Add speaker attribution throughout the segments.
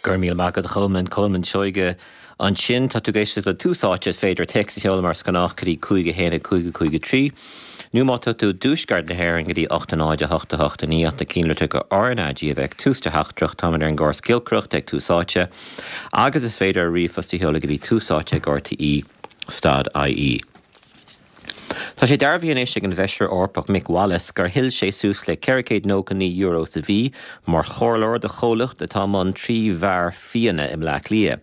Speaker 1: Go raibh míle maith agat a Cholmáin, Colmán Seoige ansin. Tá tú ag éisteacht le Tús Áite, is féidir téacs a sheoladh mar is gnách go dtí 5 1 5 5 3 nó má tá tú i dtuaisceart na hÉireann go dtí 8 0 8 8 9 ach na cinnlitreacha RnaG a bheith ag tús do theachtaireacht. Táimid ar an gcóras giolcaireachta ag Tús Áite agus is féidir ríomhphost a sheoladh go dtí túsáite ag rte stad ie. Tá sé dearbhaithe anois ag an bhFeisire Eorpach Mick Wallace gur thuill sé suas le €499 sa mhí mar chomhairleoir do chomhlacht atá i mbun 3 bheár fíona i mBleá Cliath.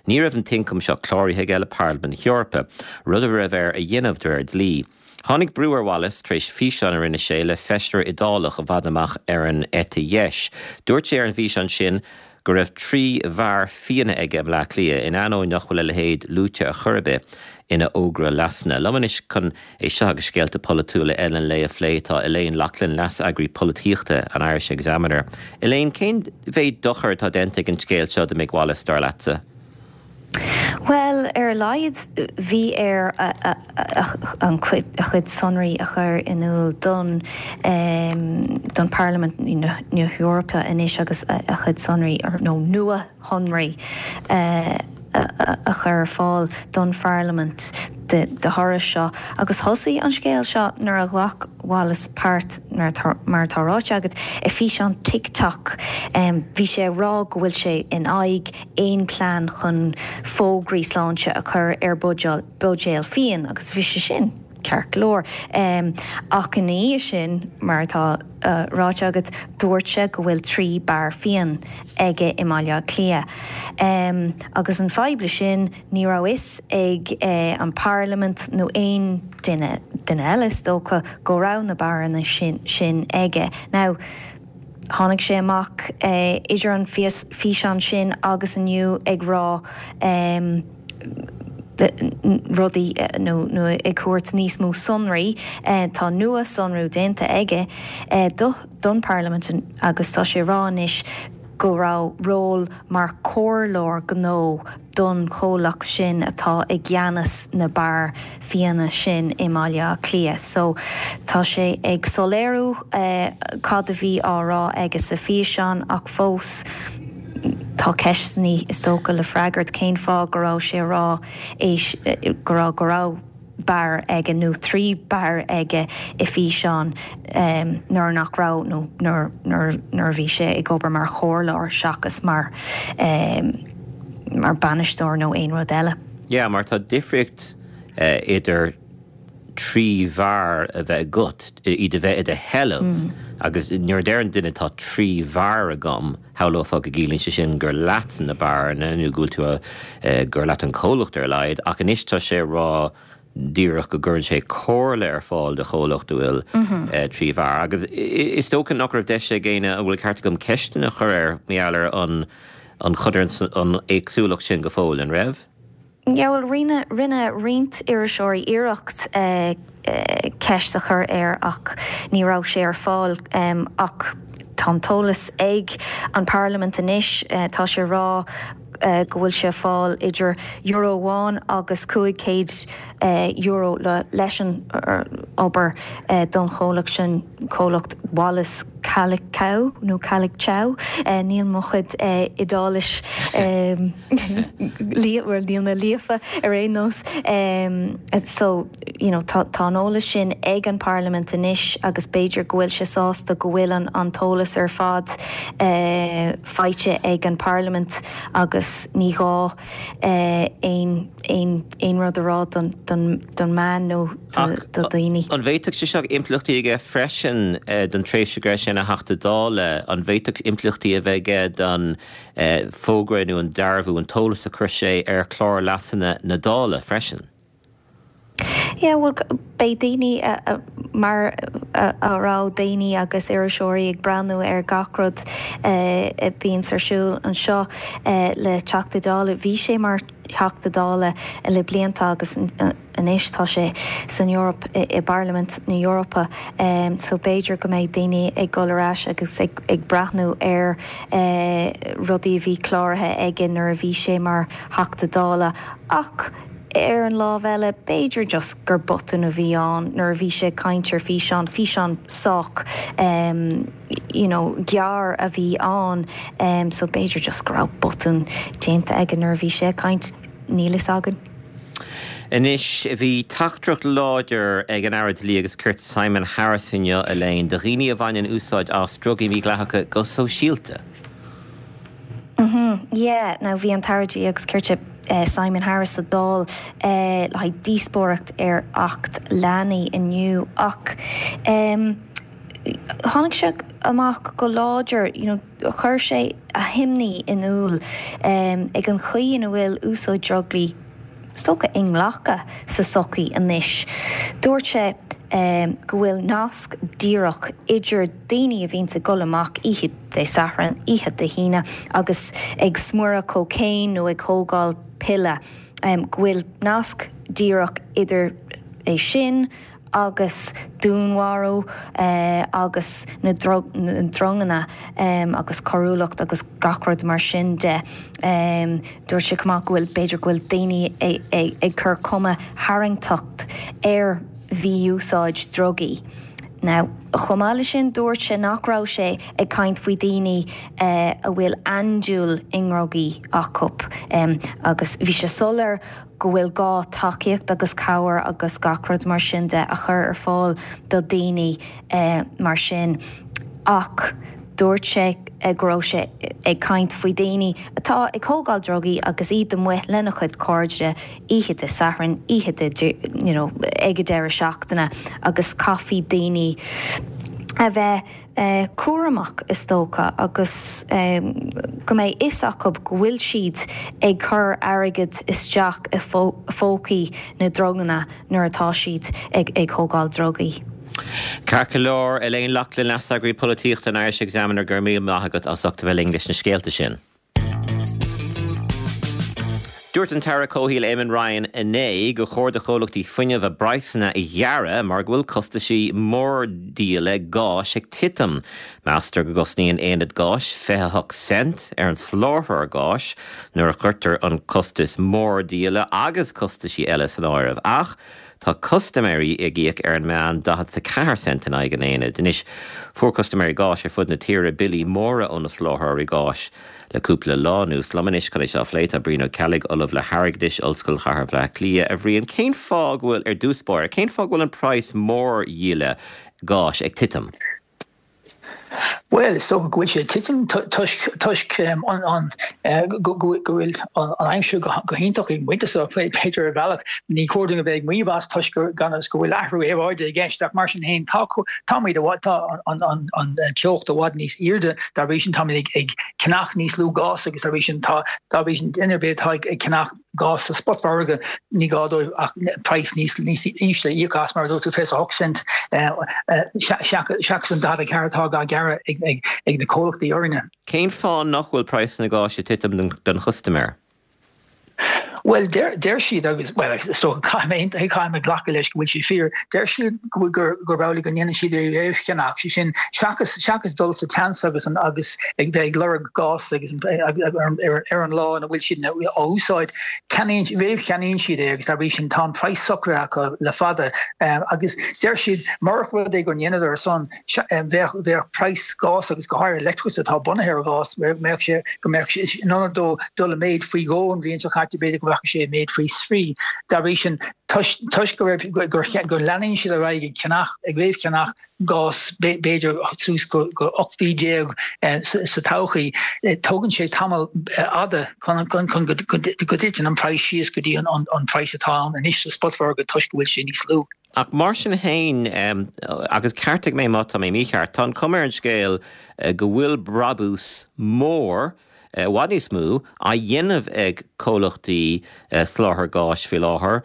Speaker 1: Ní raibh an t-ioncam seo cláraithe aige le Parlaimint na hEorpa, rud a raibh air a dhéanamh de réir dlí. Tháinig brú ar Wallace tar éis físeán a rinne sé le feisire Iodálach i bhfad amach ar an eite dheis. Dúirt sé ar an bhfíseán sin go raibh 3 bheár fíona aige i mBleá Cliath, in ainneoin nach bhfuil a leithéid luaite ar chor ar bith ina fhógra leasanna. Liom anois chun é seo agus scéalta polaitiúla eile an lae a phlé tá Elaine Loughlin, Leas-Eagraí Polaitíochta an Irish Examiner. Elaine, cén mhéid dochair atá déanta ag an scéal seo do Mick Wallace, dar leatsa?
Speaker 2: Bhuel, ar a laghad bhí air a chuid sonraí a chur in iúl don don Pharlaimint na hEorpa anois agus a chuid sonraí, nó nua-shonraí, a chur ar fáil don Pharlaimint de thoradh seo. Agus thosaigh an scéal seo nuair a ghlac Wallace páirt, mar atá ráite agat, i bhfíseán TikTok. Bhí sé ag rá go bhfuil sé in aghaidh aon plean chun fógraí sláinte a chur ar buidéil fíon agus bhí sé sin ceart go leor. Ach ina dhiaidh sin, mar atá ráite agat, dúirt sé go bhfuil 3 beár fíon aige i mBaile Átha Cliath. Agus an fadhb le sin, ní raibh fhios ag an bParlaimint nó aon duine, duine eile is dócha, go raibh na beáranna sin aige. Now. Tháinig sé amach idir an físeán sin agus inniu ag rá rudaí nó ag tabhairt níos mó sonraí. Tá nua-sonrú déanta aige don Pharlaimint agus tá sé ag rá anois go raibh ról mar chomhairleoir gnó don chomhlacht sin atá i gceannas na beár fíona sin i mBaile Átha Cliath. So, tá sé ag soiléiriú cad a bhí á rá aige sa físeán ach fós tá ceisteanna, is dócha, le freagairt. Cén fáth go raibh sé a rá é, go raibh, go raibh beár aige nó 3 beár aige i bhfíseán nuair nach raibh nó nuair nuair a bhí sé ag obair mar chomhairleoir seachas mar mar bainisteoir nó aon rud eile.
Speaker 1: Yeah, mar tá difríocht idir 3 bheár a bheith agat, iad a bheith i do sheilbh agus nuair a deireann duine tá 3 bheár agam, Shamhlófá go gciallaíonn sé sin gur leat na beáranna nó go bhfuil tú a, gur leat an comhlacht ar a laghad, ach anois tá sé ag rá díreach go gcuireann sé comhairle ar fáil do chomhlacht a bhfuil 3 bheár. Agus is dócha nach raibh deis ag éinne, an bhfuil ceart agam, ceisteanna a chur air mar gheall ar an an an éagsúlacht sin go fóill, an raibh?
Speaker 2: Yeah, bhuel, rinne, rinne roinnt iriseoirí iarracht ceist a chur air ach ní raibh sé ar fáil. Ach tá an t-eolas ag an bParlaimint anois, tá sé ag rá go bhfuil sé ag fáil idir euro amháin agus €500 le, leis an obair don chomhlacht sin, comhlacht Wallace Calicau nó Calicciao, níl mo chuid Iodáilis. Bhuel, níl mé líofa ar aon nós. So, you know, tá tá an eolas sin ag an Parlaimint anois agus b'fhéidir go bhfuil sé sásta go bhfuil an an t-eolas ar fad faighte ag an Parlaimint agus ní gá aon aon aon rud a rá don don don meán nó do do dhaoine.
Speaker 1: An bhféadfadh sé seo impleachtaí aige freisin don tréimhse go raibh sé ina Theachta Dála? An bhféadfadh impleachtaí a bheith aige don fógra nó an dearbhú, an t-eolas a chuir sé ar chlár leasanna na Dála freisin.
Speaker 2: Yeah, bhuel, beidh daoine, mar a raibh daoine agus iriseoirí ag breathnú ar gach rud a bhíonns ar siúl anseo le Teachta Dála. Bhí sé mar Theachta Dála le blianta agus anois tá sé san Eoraip, i bParlaimint na hEorpa so b'fhéidir go mbeidh daoine ag dul ar ais agus ag breathnú ar rudaí a bhí cláraithe aige nuair a bhí sé mar Theachta Dála. Ach. Ar an lámh eile, b'fhéidir just gur botún a bhí ann nuair a bhí sé ag caint ar físeán, físeán sách you know gearr a bhí ann so b'fhéidir just go raibh botún déanta aige nuair a bhí sé ag caint, níl fhios againn.
Speaker 1: Anois, bhí teachtaireacht láidir ag an Aire Dlí agus Cirt Simon Harris inniu, Elaine, do dhaoine a bhaineann úsáid as drugaí mídhleathacha go sóisialta.
Speaker 2: Mhm, yeah. Now bhí an tAire Dlí agus Cirt Simon Harris sa Dáil le haghaidh díospóireacht ar Acht Leanaí inniu ach em tháinig sé amach go láidir, you know, chuir sé a himní in iúl em ag an chaoi ina bhfuil úsáid drugaí is dócha, inghlactha sa tsochaí anois. Dúirt sé go bhfuil nasc díreach idir daoine a bhíonns ag dul amach oíche Dé Sathairn, oíche Dé hAoine agus ag smuireadh cocaine nó ag thógáil piolla, go bhfuil nasc díreach idir é sin agus dúnmharú agus na dronganna agus coiriúlacht agus gach rud mar sin de. Dúirt sé chomh maith go bhfuil, b'fhéidir go bhfuil daoine ag cur cuma tharraingteach ar mhí-úsáid drugaí. Now, chomh maith leis sin, dúirt sé nach raibh sé ag caint faoi daoine a bhfuil andúil i ndrugaí acu agus bhí sé soiléir go bhfuil gá tacaíocht agus cabhair agus gach rud mar sin de a chur ar fáil do daoine mar sin ach dúirt sé go raibh sé ag caint faoi daoine atá ag thógáil drugaí agus iad amuigh lena chuid cairde oíche Dé Sathairn, oíche Dé you know ag an deireadh seachtaine agus caithfidh daoine a bheith cúramach, is dócha, agus go mbeidh fhios acu go bhfuil siad ag cur airgead isteach i phócaí na ndronganna nuair atá siad ag thógáil drugaí.
Speaker 1: Ceart go leor, Elaine Loughlin, Leaseagraí Polaitíochta an Irish Examiner, go raibh míle maith agat as ucht a bheith linn leis na scéalta sin. Dúirt an tAire Comhshaoil Eamon Ryan inné gur chóir do chomhlachtaí fuinnimh a bpraghsanna a ghearradh mar go bhfuil costaisí mórdhíola gáis ag titim. Meastar go gcosnaíonn aonad gáis 28 cent ar an soláthróir gáis nuair a chuirtear an costas mórdhíola agus costaisí eile san áireamh. Ach tá custaiméirí ag íoc ar an meán 44 cent in aghaidh an aonaid. Anois, fuair custaiméirí gáis ar fud na tíre billí móra ó na soláthróirí gáis le cúpla lá anuas. Liom anois chun é seo a phlé tá Brian Ó Ceallaigh, Ollamh le hAirgeadais, Ollscoil Chathair Bhaile Átha Cliath. A Bhriain, cén fáth go bhfuil, ar dtús báire, cén fáth go bhfuil an praghas mórdhíola gáis ag titim?
Speaker 3: Bhuel, is dócha go bhfuil sé ag titim toisc toisc an go bhfuil an aimsir go hiontach ag an bpointe seo, b'fhéidir ar bhealach. Ní chóir dúinn a bheith ag maíomh as toisc gan fhios go bhfuil athrú aeráide i gceist ach mar sin féin tá táimid i bhfad tá an an teocht i bhfad níos airde dá bhrí sin táimid ag ceannach níos lú gás agus dá bhrí sin tá dá bhrí sin duine ar bith atá ag ceannach gás sa spotmhargadh, ní gá dóibh ach praghas níos ísle a íoc as, mar a dúirt tú, 28 cent seachas an 44 atá á ghearradh ag na comhlachtaí orainne.
Speaker 1: Cén fáth nach bhfuil praghas na gáis ag titim don chustaiméir?
Speaker 3: Bhuel, deir siad, agus, bhuel, is dócha, caithfidh mé, caithfidh mé glacadh leis go bhfuil sé fíor, deir siad go bhfuil, gurb amhlaidh go ndéanann siad é a réamhcheannach, sé sin, seachas, seachas dul sa tseans agus an, agus ag bheith ag lorg gás agus ar an lá ina bhfuil siad á úsáid, ceannaíonn, réamhcheannaíonn siad é agus dá bhrí sin tá an praghas socraithe acu le fada. Agus deir siad, murach rud é go ndéanadar san, bheadh, bheadh praghas gás agus go háirithe leictreachas atá bunaithe ar ghás, mbeadh sé, go mbeadh sé, in ionad dó dul i méid faoi dhó an bhliain seo caite, b'fhéidir go rachadh sé i méid faoi thrí. Dá bhrí sin, toisc, toisc go raibh, gur, go leanann siad ar aghaidh ag ceannach, ag réamhcheannach gás b'fhéidir suas go 18 mhí sa todhchaí, tógann sé tamall fhada chun go dtiteann an praghas síos go dtí an praghas atá ann anois sa spotmhargadh toisc go bhfuil sé níos lú.
Speaker 1: Ach mar sin féin, agus ceartaigh mé má tá mé mícheart, tá an chuma ar an scéal go bhfuil brabús mór, i bhfad níos mó, á dhéanamh ag comhlachtaí soláthair gáis faoi láthair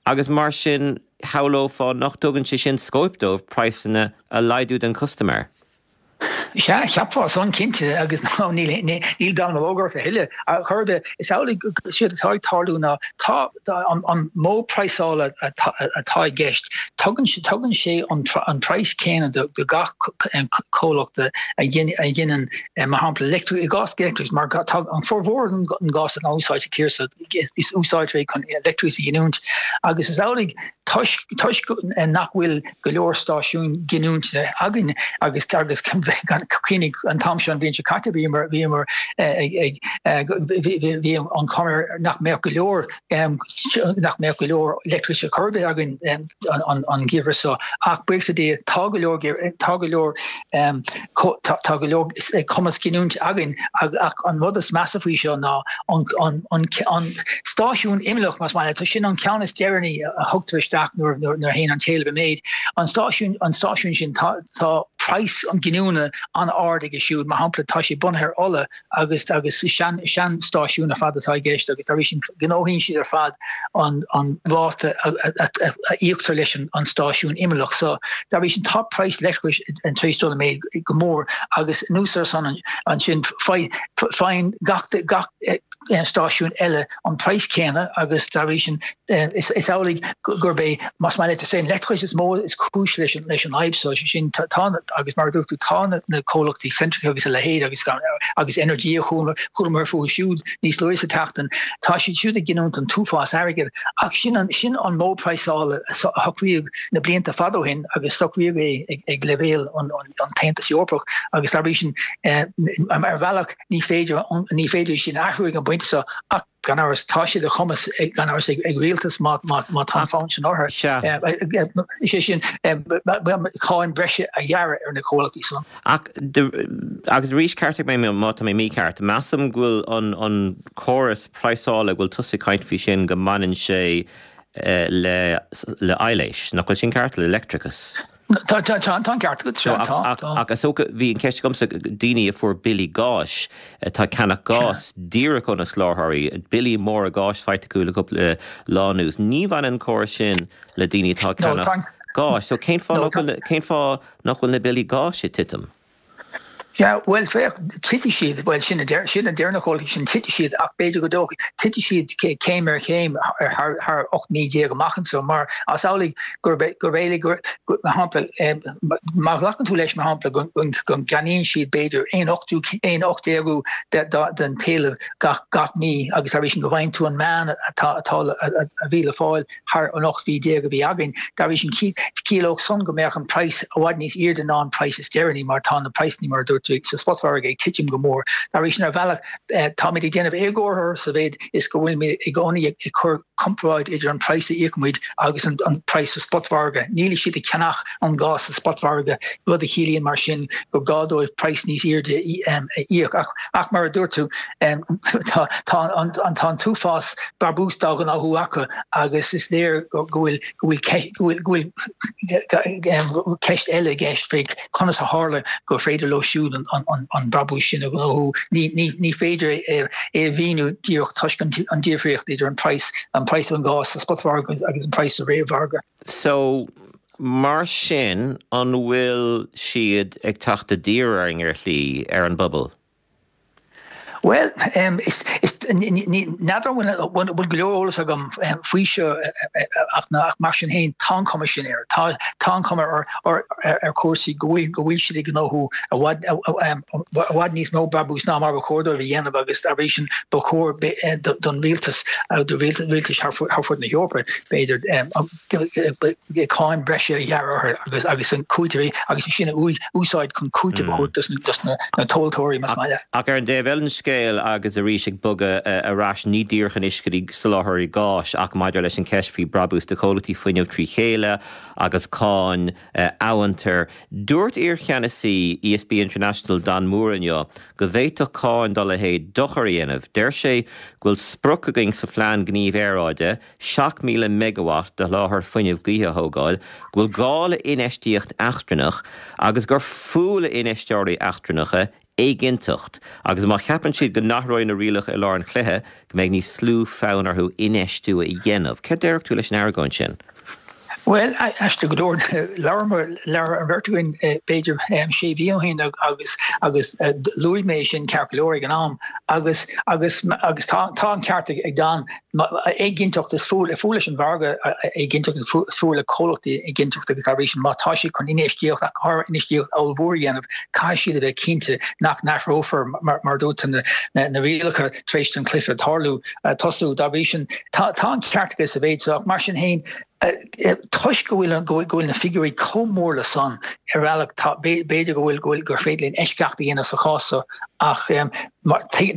Speaker 1: agus mar sin shamhlófá nach dtugann sé sin scóip dóibh praghsanna a laghdú don chustaiméir.
Speaker 3: Sea, cheapfá san, cinnte, agus níl dallamullóg ort a thuilleadh. Ar chor ar bith, is amhlaidh go séard atá ag tarlú ná tá an modh praghsála atá i gceist, tugann sé an praghas céanna do gach comhlacht a ghineann, mar shampla, i gcás leictreachais, mar tá an formhór den ghás atá in úsáid sa tír seo, is úsáidtear é chun leictreachas a ghiniúint, agus is amhlaidh toisc nach bhfuil go leor stáisiún giniúinte againn agus agus cuimhnigh an t-am seo an bhliain seo caite bhíomar bhíomar ag ag bhí an chuma air nach mbeadh go leor nach mbeadh go leor leictreachais ar chor ar bith againn an an geimhreadh seo ach buíochas le Dia tá go leor tá go leor Tá go leor cumas giniúint againn ach an rud is measa faoi seo ná an stáisiún imeallach, más maith leat, sin an ceann is deireanaí a thugtar isteach nuair a théann an t-éileamh i méid. An stáisiún sin, tá praghas an ghiniúna an-ard aige siúd. Mar shampla, tá sé bunaithe ar ola agus agus sean seanstáisiún ar fad atá i gceist agus dá bhrí sin gnóthaíonn siad ar fad an an ráta a íoctar leis an stáisiún imeallach so dá bhrí sin tá praghas leictreachais tar éis dul i méid go mór agus anuas ar san ansin faigheann gach gach stáisiún eile an praghas céanna agus dá bhrí sin is amhlaidh gurb é, más maith leat, is é an leictreachas is mó is cúis leis an leis an fhadhb seo, sé sin tá agus mar a dúirt tú tá na comhlachtaí Centrica agus a leithéid agus agus Energia chualamar fúthu siúd níos luaithe sa tseachtain, tá siad siúd ag giniúint an t-uafás airgid ach sin an sin an modh praghsála a socraíodh na blianta fada ó shin agus socraíodh é ag leibhéal an an tAontas Eorpach agus dá bhrí sin ar bhealach ní féidir ní féidir sin a athrú ag an bpointe seo ach Gan amhras, tá sé de chumas, gan amhras, ag rialtas má tá an fonn sin orthu, is é sin, cáin bhreise a ghearradh ar na comhlachtaí san.
Speaker 1: Ach, agus arís, ceartaigh mé má tá mé mícheart, measaim go bhfuil an córas praghsála go bhfuil tusa ag caint faoi sin go mbaineann sé le aibhléis, nach bhfuil sin ceart, le leictreachas?
Speaker 3: Tá an ceart agat, sea, tá,
Speaker 1: tá. Ach is dócha, bhí an cheist agamsa, daoine a fuair billí gáis, atá ag ceannach gás díreach ó na soláthróirí, billí móra gáis faighte acu le cúpla lá anuas, ní bhaineann an córas sin le daoine atá ag ceannach gáis. So cén fáth nach bhfuil, cén fáth nach bhfuil na billí gáis ag titim?
Speaker 3: Sea, bhuel, féach, titfidh siad, bhuel, sin a deir, sin a deir na comhlachtaí sin, titfidh siad ach b'fhéidir go dtógfaidh, titfidh siad céim ar chéim thar, thar 18 mí amach anseo mar is amhlaidh gurb é, gurb é, gur, mar shampla, má ghlacann tú leis, mar shampla, go, go, go gceannaíonn siad b'fhéidir aon ochtú, aon ochtdéagú de, de, den t-éileamh gach, gach mí agus dá bhrí sin go bhfaigheann tú an meán atá, atá, a bhí le fáil thar an 18 mhí a bhí againn. Dá bhrí sin, chiallódh san go mbeadh an praghas i bhfad níos airde ná an praghas is deireanaí mar tá na praghsanna, mar a dúirt tú, sa spotmhargadh ag titim go mór. Dá bhrí sin, ar bhealach, táimid ag déanamh éagóir orthu sa mhéid is go bhfuilimid i gcónaí ag cur comparáid idir an praghas a íocaimid agus an praghas sa spotmhargadh. Níl siad ag ceannach an gás sa spotmhargadh, rud a chiallaíonn mar sin gur gá dóibh praghas níos airde a íoc. Ach mar a dúirt tú, tá an t-uafás brabús dá ghnóthú acu agus is léir go bhfuil go bhfuil go bhfuil ceist eile i gceist faoi conas a tharla gur féidir leo siúd an brabús sin a ghnóthú. Ní féidir é a mhíniú díreach toisc an difríocht idir an praghas an praghas an gáis sa spotmhargadh agus an praghas sa réamh-mhargadh.
Speaker 1: So, mar sin, an bhfuil siad ag teacht i dtír orainn ar shlí, ar an bpobal?
Speaker 3: Bhuel, n'fheadar an bhfuil go leor eolas agam faoi seo ach mar sin féin tá an chuma sin air. Tá an chuma ar chúrsaí go bhfuil go bhfuil siad ag gnóthú i bhfad i bhfad níos mó brabús ná mar ba chóir dóibh a dhéanamh agus dá bhrí sin ba chóir don rialtas, do rialtais thar fud na hEorpa b'fhéidir, cáin bhreise a ghearradh orthu agus agus an cúiteamh agus é sin a úsáid chun cúiteamh a thabhairt dos na tomhaltóirí, más maith leat.
Speaker 1: Ach ar an dtaobh eile den scéal, agus arís ag bogadh ar ais, ní díreach anois go dtí soláthróirí gáis ach maidir leis an cheist faoi brabús de chomhlachtaí fuinnimh trí chéile agus cáin amhantair, dúirt iarcheannasaí ESB International Dan Moore inniu go bhféadfadh cáin dá leithéid dochar a dhéanamh. Deir sé go bhfuil sprioc againn sa Phlean Gnímh Aeráide 7,000 meigeawatt de sholáthar fuinnimh gaoithe a thógáil, go bhfuil gá le infheistíocht eachtrannach agus gur fuath le infheisteoirí eachtrannacha éiginnteacht agus má cheapann siad go n-athróidh na rialacha i lár an chluiche, go mbeidh níos lú fonn orthu infheistiú a dhéanamh. Céard déarfadh tú leis an argóint sin?
Speaker 3: Bhuel, aisteach go leor, labhair labhair an bheirt againn b'fhéidir sé mhí ó shin agus agus luaigh mé sin ceart go leor ag an am agus agus agus tá tá an ceart ag Dan, éiginnteacht is fuath fuath leis an mhargadh éiginnteacht is fuath le comhlachtaí éiginnteacht agus dá bhrí sin má tá siad chun infheistíocht ach go háirithe infheistíocht ollmhór a dhéanamh caithfidh siad a bheith cinnte nach n-athrófar mar mar a dúirt tú na na rialacha tar éis don chluiche tarlú tosú. Dá bhrí sin tá tá an ceart aige sa mhéid seo ach mar sin féin Toisc go bhfuil go bhfuil na figiúirí chomh mór le san, ar bhealach, tá, b'fhéidir go bhfuil, go bhfuil, gur féidir linn eisceacht a dhéanamh sa chás seo ach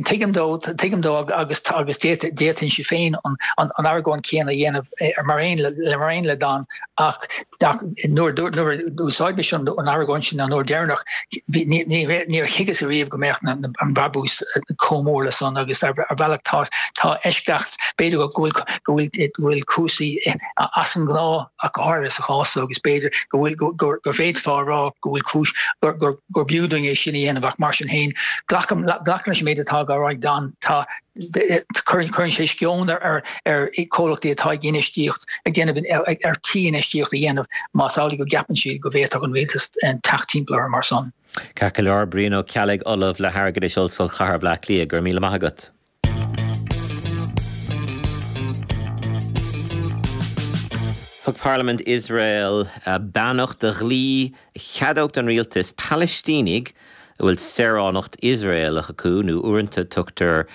Speaker 3: tuigim dó, tuigim dó agus agus d'fhéadfainnse féin an an argóint chéanna a dhéanamh mar aon le mar aon le Dan ach nuair nuair a d'úsáid mise an argóint sin an uair deireanach bhí ní ní níor thuigeas ariamh go mbeadh na an brabús chomh mór le san agus ar bhealach tá tá eisceacht B'fhéidir go bhfuil go bhfuil go bhfuil cúrsaí as an ngnáth ach go háirithe sa chás seo agus b'fhéidir go bhfuil go go bhféadfá a rá go bhfuil cúis gur gur gur b'fhiú dúinn é sin a dhéanamh ach mar sin féin glacaim glacaim leis an méid atá á rá ag Dan tá cuireann cuireann sé sceon ar ar ar comhlachtaí atá ag infheistíocht ag déanamh ar tí infheistíocht a dhéanamh más amhlaidh go gceapann siad go bhféadfadh an rialtas teacht timpeall orthu mar san.
Speaker 1: Ceart go leor, Brian Ó Ceallaigh, Ollamh le hAirgeadas, Ollscoil Chathair Bhaile Átha Cliath, go raibh míle maith agat. Thug Parlaimint Iosrael beannacht do dhlí a cheadódh don rialtas Palaistínigh a bhfuil saoránacht Iosraelach acu, nó uaireanta tugtar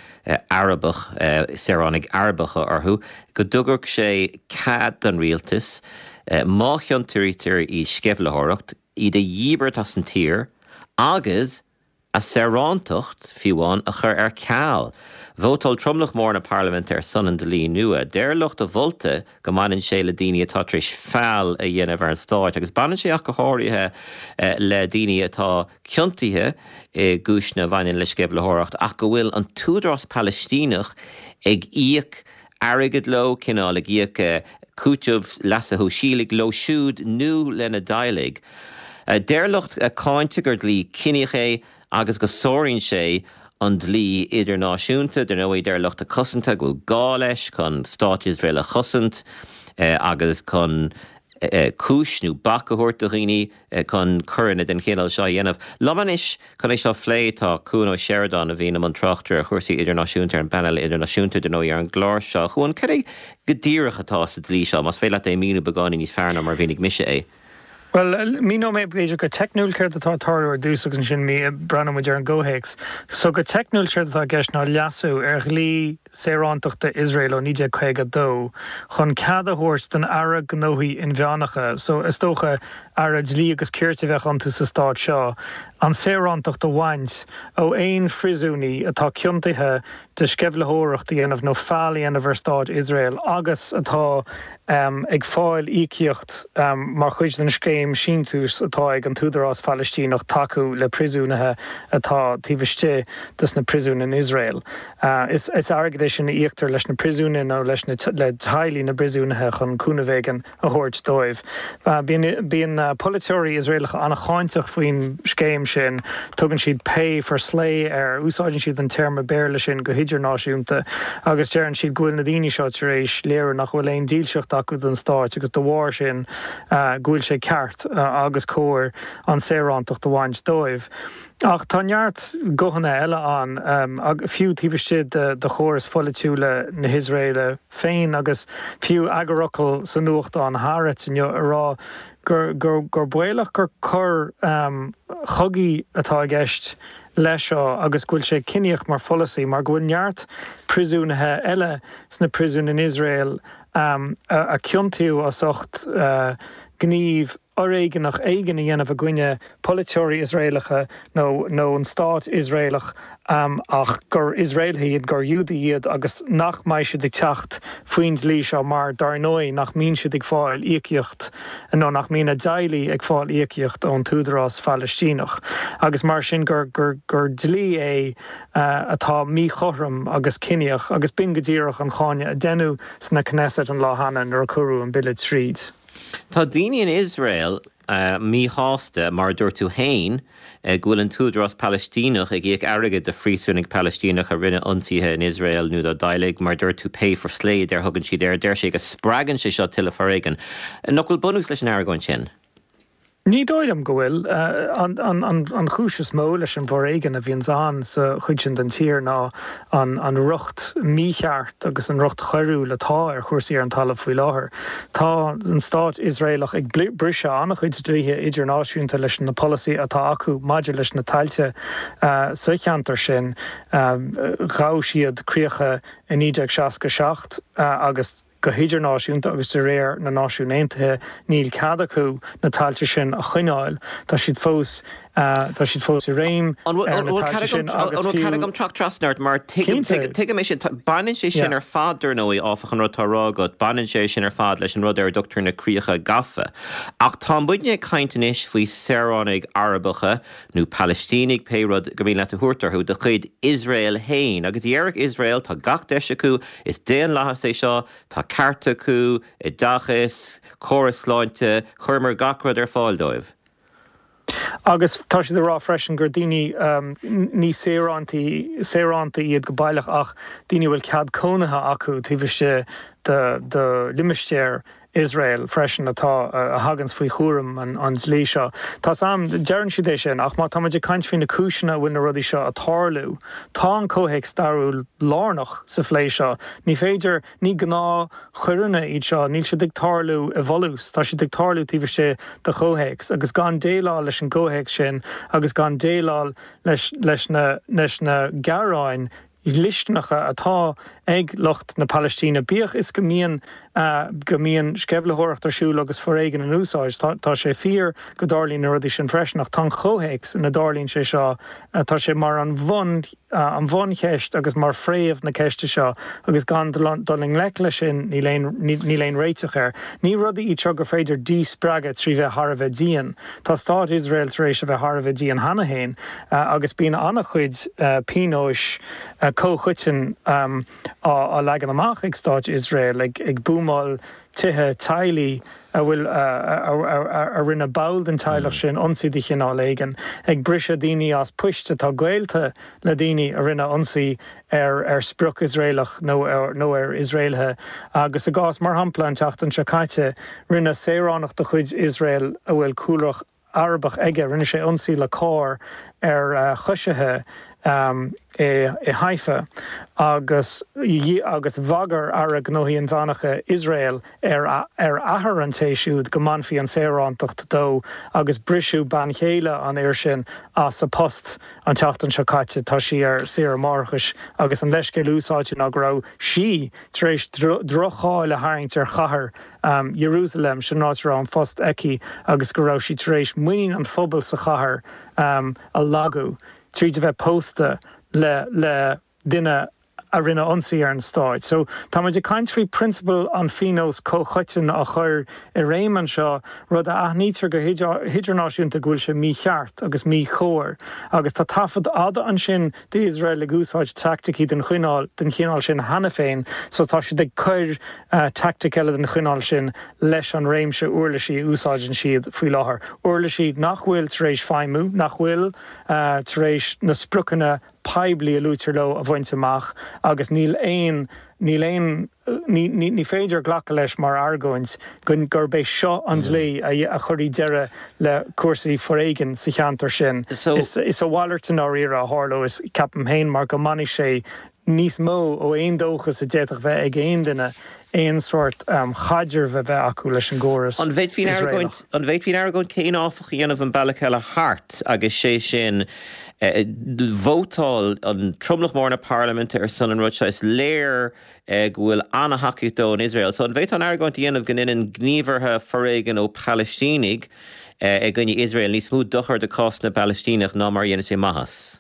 Speaker 1: Arabach, saoránaigh Arabacha orthu, go dtabharfadh sé cead don rialtas, má chiontaítear i sceimhlitheoireacht, iad a dhíbirt as an tír agus a saorántacht, fiú amháin, a chur ar ceal. Vótáil tromlach mór na parlaiminte ar son an dlí nua. Deir lucht a mholta go mbaineann sé le daoine atá tar éis feall a dhéanamh ar an stáit agus baineann sé ach go háirithe le daoine atá ciontaithe i gcúiseanna a bhaineann le sceimhlitheoireacht ach go bhfuil an tÚdarás Palaistíneach ag íoc airgid leo, cineál ag íoc cúiteamh leasa shóisialaigh leo siúd nó lena dteaghlaigh. Deir lucht a cáinte gur dlí ciníoch é agus go sáraíonn sé an dlí idirnáisiúnta. Dar ndóigh, deir lucht a cosanta go bhfuil gá leis chun Stát Iosrael a chosaint agus chun cúis nó bac a thabhairt do dhaoine chun coireanna den chineál seo a dhéanamh. Liom anois chun é seo a phlé tá Cuan Ó Seireadáin a bhíonn i mbun tráchtaire ar chúrsaí idirnáisiúnta ar an bpainéal idirnáisiúnta, dar ndóigh, ar an gclár seo. A Chuain, cad é go díreach atá sa dlí seo, más féidir leat é a mhíniú beagáinín níos fearr ná mar a mhínigh mise é?
Speaker 4: Bhuel, míneoidh mé b'fhéidir go teicniúil céard atá ag tarlú ar dtús agus ansin breathnóidh muid ar an gcomhthéacs. So go teicniúil séard atá i gceist ná leasú ar dhlí saorántachta Iosrael ó 1952 chun cead a thabhairt don Aire Gnóthaí Inmheánacha, so is dócha Aire Dlí agus Cirt a bheadh iontu sa stát seo, an saorántacht a bhaint ó aon phríosúnaí atá ciontaithe de sceimhlitheoireacht a dhéanamh nó feall a dhéanamh ar Stát Iosrael agus atá ag fáil íocaíocht mar chuid den scéim síntiús atá ag an tÚdarás Phalaistíneach tacú le príosúnaithe atá taobh istigh de sna príosúin in Iosrael. Is airgead é sin a íoctar leis na príosúnaithe nó leis na le teaghlaigh na bpríosúnaithe chun cúnamh éigin a thabhairt dóibh. Bíonn polaiteoirí Iosraelacha an-cháinteach faoin scéim sin, tugann siad pay for slay air, úsáideann siad an téarma Béarla sin go hidirnáisiúnta, agus deireann siad go bhfuil na daoine seo tar éis léiriú nach bhfuil aon dílseacht acu don stáit agus de bharr sin go bhfuil sé ceart agus cóir an saorántacht a bhaint dóibh. Ach tá neart guthanna eile ann, fiú taobh istigh de chóras pholaitiúla na hIosraeile féin agus fiú eagarfhocal sa nuachtán Haaretz inniu ag rá gur gur baolach gur coir chogaidh atá i gceist leis seo agus go bhfuil sé ciníoch mar pholasaí mar go bhfuil neart príosúnaithe eile sna príosúin in Iosrael a ciontaíodh as ucht gníomh fhoréigeanach éigin a dhéanamh i gcoinne polaiteoirí Iosraelacha nó nó an stát Iosraelach ach gur Iosraelaithe iad, gur Iúdaigh iad agus nach mbeidh siad ag teacht faoin dlí seo mar, dar ndóigh, nach mbíonn siad ag fáil íocaíocht nó nach mbíonn a dteaghlaigh ag fáil íocaíocht ón tÚdarás Phalaistíneach agus mar sin gur gur gur dlí é atá míchothrom agus ciníoch agus b'in go díreach an cáineadh a deineadh sna Knesset an lá cheana nuair a cuireadh an bille tríd.
Speaker 1: Tá daoine in Iosrael. míshásta, mar a dúirt tú féin, go bhfuil an tÚdarás Palaistíneach ag íoc airgid do phríosúnaigh Palaistíneacha a rinne ionsaithe in Iosrael nó dá dteaghlaigh, mar a dúirt tú, pay for slay a deir thugann siad air. Deir sé go spreagann sé seo tuilleadh foréigin. Nach bhfuil bunús leis an argóint sin?
Speaker 4: Ní dóigh liom go bhfuil. An chúis is mó leis an bhforéigean a bhíonns ann sa chuid sin den tír ná an riocht mícheart agus an riocht choiriúil atá ar chúrsaí ar an talamh faoi láthair. Tá an stát Iosraelach ag briseadh an-chuid dlíthe idirnáisiúnta leis na polasaithe atá acu maidir leis na tailte sa cheantar sin. Ghabh siad críocha i 1967 agus. Go hidirnáisiúnta agus de réir na Náisiún Aontaithe níl cead acu na tailte sin a choinneáil. Tá siad fós tá siad fós i réim
Speaker 1: ar na tailte sin agus fiú. An bhfuil cead agam teacht trasna ort mar tuigim tuigim é sin. Baineann sé sin ar fad dar ndóigh áfach an rud atá á rá agat, baineann sé sin ar fad leis an rud ar a dtugtar na críocha gafa. Ach tá muidne ag caint anois faoi saoránaigh Arabacha nó Palaistínigh, pé rud gur mian leat a thabhairt orthu, de chuid Iosrael féin. Agus déarfadh Iosrael, tá gach deis acu, is daonlathas é seo, tá cearta acu, oideachas, córas sláinte, chuireamar gach rud ar fáil dóibh.
Speaker 4: Agus tá siad ag rá freisin gur daoine, ní saorántaí, saorántaigh iad go baileach ach daoine a bhfuil cead cónaithe acu taobh istigh de, de limistéar Iosrael freisin atá, a thaganns faoi chúram an dlí seo. Tá's a'm, deireann siad é sin, ach má tá muid ag caint faoi na cúiseanna a bhfuil na rudaí seo a' tarlú, tá an comhthéacs stairiúil lárnach sa phlé seo. Ní féidir, ní gnáthchoireanna iad seo, níl siad ag tarlú i bhfolús, tá siad ag tarlú taobh istigh de chomhthéacs, agus gan déileáil leis an gcomhthéacs sin agus gan déileáil leis, leis na, leis na gearáin dhlisteanacha atá ag lucht na Palaistíne, bíodh is go mbíonn go mbíonn sceimhlitheoireacht ar siúl agus foréigean in úsáid. Tá sé fíor go dtarlaíonn na rudaí sin freisin, ach tá an comhthéacs ina dtarlaíonn sé seo, tá sé mar an bhun an bhuncheist agus mar phréamh na ceiste seo agus gan dul i ngleic leis sin níl aon níl aon réiteach air. Ní rudaí iad seo gur féidir díspreagadh trí bheith thar a bheith dian. Tá stát Iosrael tar éis a bheith thar a bheith dian cheana féin agus bíonn an-chuid pionóis comhchoiteann á leagan amach ag stát Iosrael, ag buamáil tithe teaghlaigh a bhfuil a rinne ball den teaghlach sin ionsaí de chineál éigin, ag briseadh daoine as poist atá gaolta le daoine a rinne ionsaí ar ar sprioc Iosraelach nó nó ar Iosraelaithe agus i gcás, mar shampla, an tseachtain seo caite, rinne saoránach de chuid Iosrael a bhfuil cúlra Arabach aige, rinne sé ionsaí le carr ar choisithe i Haifa agus agus bhagair Aire Gnóthaí Inmheánacha Iosrael ar ar athair an té siúd go mbainfí an saorántacht dó agus briseadh bean chéile an fhir sin as a post. An tseachtain seo caite tá sí ar saoire máithreachais agus an leithscéal úsáidte ná go raibh sí tar éis droch-cháil a tharraingt ar chathair Iarúsailéim, sin an áit a raibh an post aici, agus go raibh sí tar éis muinín an phobail sa chathair a lagú tríd a bheith pósta le le duine a rinne ionsaí ar an stáit. So, tá muid ag caint faoi prionsabal an phionóis comhchoiteann á chur i réim anseo, rud a aithnítear go hidirnáisiúnta go bhfuil sé mícheart agus míchóir. Agus tá taifead fhada ansin d'Iosrael ag úsáid teaicticí den chineál den chineál sin cheana féin, so tá siad ag cur teaictic eile den chineál sin leis an réimse uirlisí a úsáideann siad faoi láthair. Uirlisí nach bhfuil tar éis feidhmiú, nach bhfuil tar éis na spriocanna poiblí a luaitear leo a bhaint amach agus níl aon, níl aon, ní, ní, ní féidir glacadh leis mar argóint go, gurb é seo an dlí a, a chuirfidh deireadh le cúrsaí foréigin sa cheantar sin. Is, is a mhalairt i ndáiríre a tharlós, ceapaim féin, mar go mbainfidh sé níos mó ó aon dóchas a d'fhéadfadh bheith ag aon duine aon sórt chaidrimh a bheith acu leis an gcóras
Speaker 1: An bhféadfaí an argóint, an bhféadfaí an argóint céanna áfach a dhéanamh an bealach eile thart agus sé sin vótáil an tromlach mór na parlaiminte ar son an rud seo, is léir go bhfuil an-thacaíocht dó in Iosrael. So an bhféadfá an argóint a dhéanamh go ndéanann gníomhartha foréigin ó Phalaistínigh i gcoinne Iosrael níos mó dochair do chás na bPalaistíneach ná mar a dhéanann sé maitheas?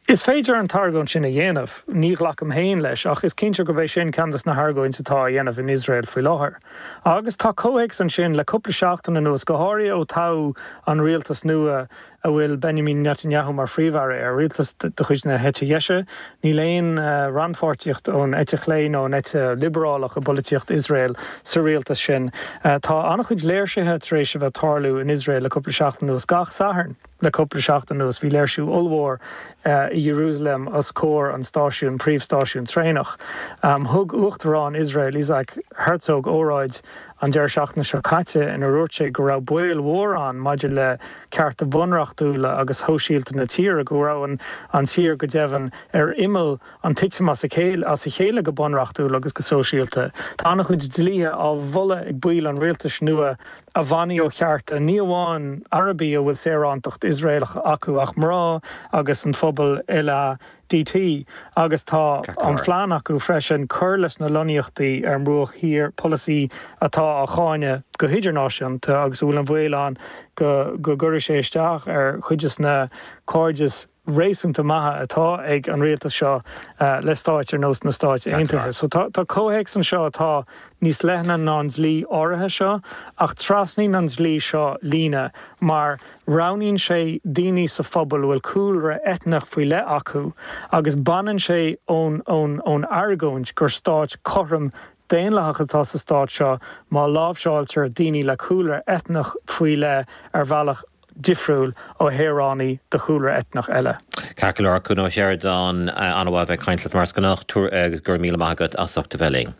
Speaker 4: Is féidir an t-argóint sin a dhéanamh. Ní ghlacaim féin leis, ach is cinnte gurb é sin ceann de na hargóintí atá á dhéanamh in Iosrael faoi láthair. Agus tá comhthéacs ansin le cúpla seachtain anuas, go háirithe ó toghadh an rialtas nua. a bhfuil Benjamin Netanyahu mar phríomh-aire air, rialtas de chuid na heite dheise. Níl aon rannpháirtíocht ón eite chlé nó an eite liobrálach i bpolaitíocht Iosrael sa rialtas sin. Tá an-chuid léirsithe tar éis a bheith ag tarlú in Iosrael le cúpla seachtain anuas. Gach Satharn le cúpla seachtain anuas bhí léirsiú ollmhór i Iarúsailéim os comhair an stáisiúin, príomhstáisiún traenach. Thug Uachtarán Iosrael, Isaac Herzog, óráid an deireadh seachtaine seo caite inar dhúirt sé go raibh baol mhór ann maidir le cearta bunreachtúla agus shóisialta na tíre, go raibh an tír go deimhin ar imeall an titim as a chéile go bunreachtúil agus go sóisialta. Tá an-chuid dlíthe á mholadh ag baill an rialtais nua a bhainfidh ó chearta ní amháin Arabaigh a bhfuil saorántacht Iosraelach acu ach mná agus an phobal LADT agus tá an phlean acu freisin cur leis na lonnaíochtaí ar an mBruach Thiar, polasaí atá á cháineadh go hidirnáisiúnta agus a bhfuil an bhaol ann go gcuirfidh sé isteach ar chuid de na cairdis réasúnta maithe atá ag an rialtas seo le stáit ar nós na Stáit Aontaithe. So tá comhthéacs anseo atá níos leithne ná an dlí áirithe seo ach trasnaíonn an dlí seo líne mar Roghnaíonn sé daoine sa phobal a bhfuil cúlra eitneach faoi leith acu agus baineann sé ón ón argóint gur stát cothrom daonlathach atá sa stát seo má láimhseáiltear daoine le cúlra eitneach faoi leith ar bhealach difriúil ó shaoránaigh de chúlra eitneach eile.
Speaker 1: Ceart go leor, Cuan Ó Seireadáin, an-mhaith a bheith ag caint leat mar is gnách, agus go raibh míle maith agat as ucht a bheith linn.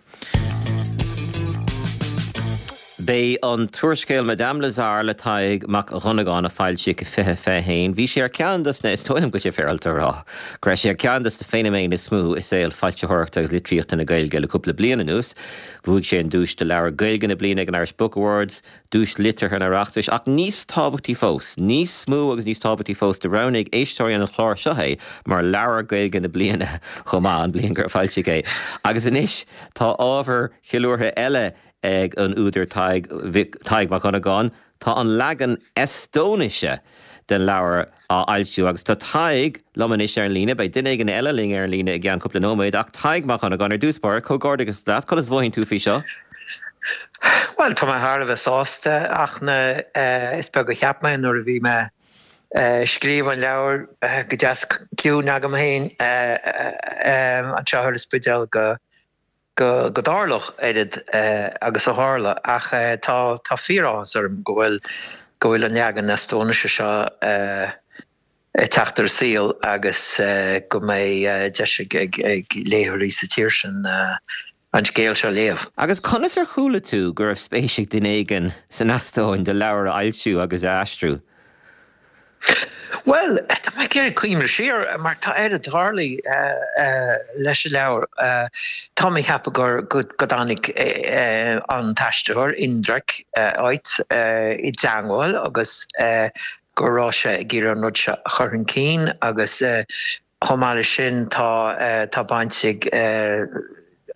Speaker 1: B'é an t-úrscéal Madame Lazare le Tadhg Mac Dhonnagáin a foilsíodh i 2021. Bhí sé ar cheann dos na, is dóigh liom go bhfuil sé féaráilte a rá, go raibh sé ar cheann dos na feiniméin is mó i saol foilsitheoireachta agus litríochta na Gaeilge le cúpla bliain anuas. Bhuaigh sé an duais do Leabhar Gaeilge na Bliana ag an Irish Book Awards, Duais Liteartha an Oireachtais, ach níos tábhachtaí fós, níos mó agus níos tábhachtaí fós, do roghnaigh éisteoirí an chláir seo é mar Leabhar Gaeilge na Bliana chomh maith, an bhliain gur foilsíodh é. Agus anois tá ábhar ceiliúrtha eile ag an údar Tadhg, Tadhg Mac Dhonnagáin, tá an leagan Eastóinise den leabhar á fhoilsiú agus tá Tadhg liom anois ar an líne. Beidh duine éigin eile linn ar an líne i gceann cúpla nóiméad ach Tadhg Mac Dhonnagáin, ar dtús báire, comhghairdeachas leat, conas a mhothaíonn tú faoi seo?
Speaker 5: Bhuel, tá mé thar a bheith sásta ach na, is beag a cheap mé nuair a bhí mé ag scríobh an leabhair go deas ciúin agam féin anseo ar an Spidéal go go dtarlódh oiread agus a tharla ach tá tá fíoráthas orm go bhfuil go bhfuil an leagan Eastóinise seo ag teacht ar an saol agus go mbeidh deis ag ag léitheoirí sa tír sin an scéal seo a léamh.
Speaker 1: Agus conas ar chuala tú go raibh spéis ag duine éigin san Eastóin do leabhar a fhoilsiú agus a aistriú?
Speaker 5: Bhuel, tá mé ag iarraidh cuimhneamh siar mar tá oiread tarlaithe leis an leabhar. Tá mé ag ceapadh gur go dtáinig an t-aistritheoir, Indrek Ots, i dteangmháil agus go raibh sé ag iarraidh an rud seo a chur chun cinn agus Chomh maith leis sin, tá tá baint ag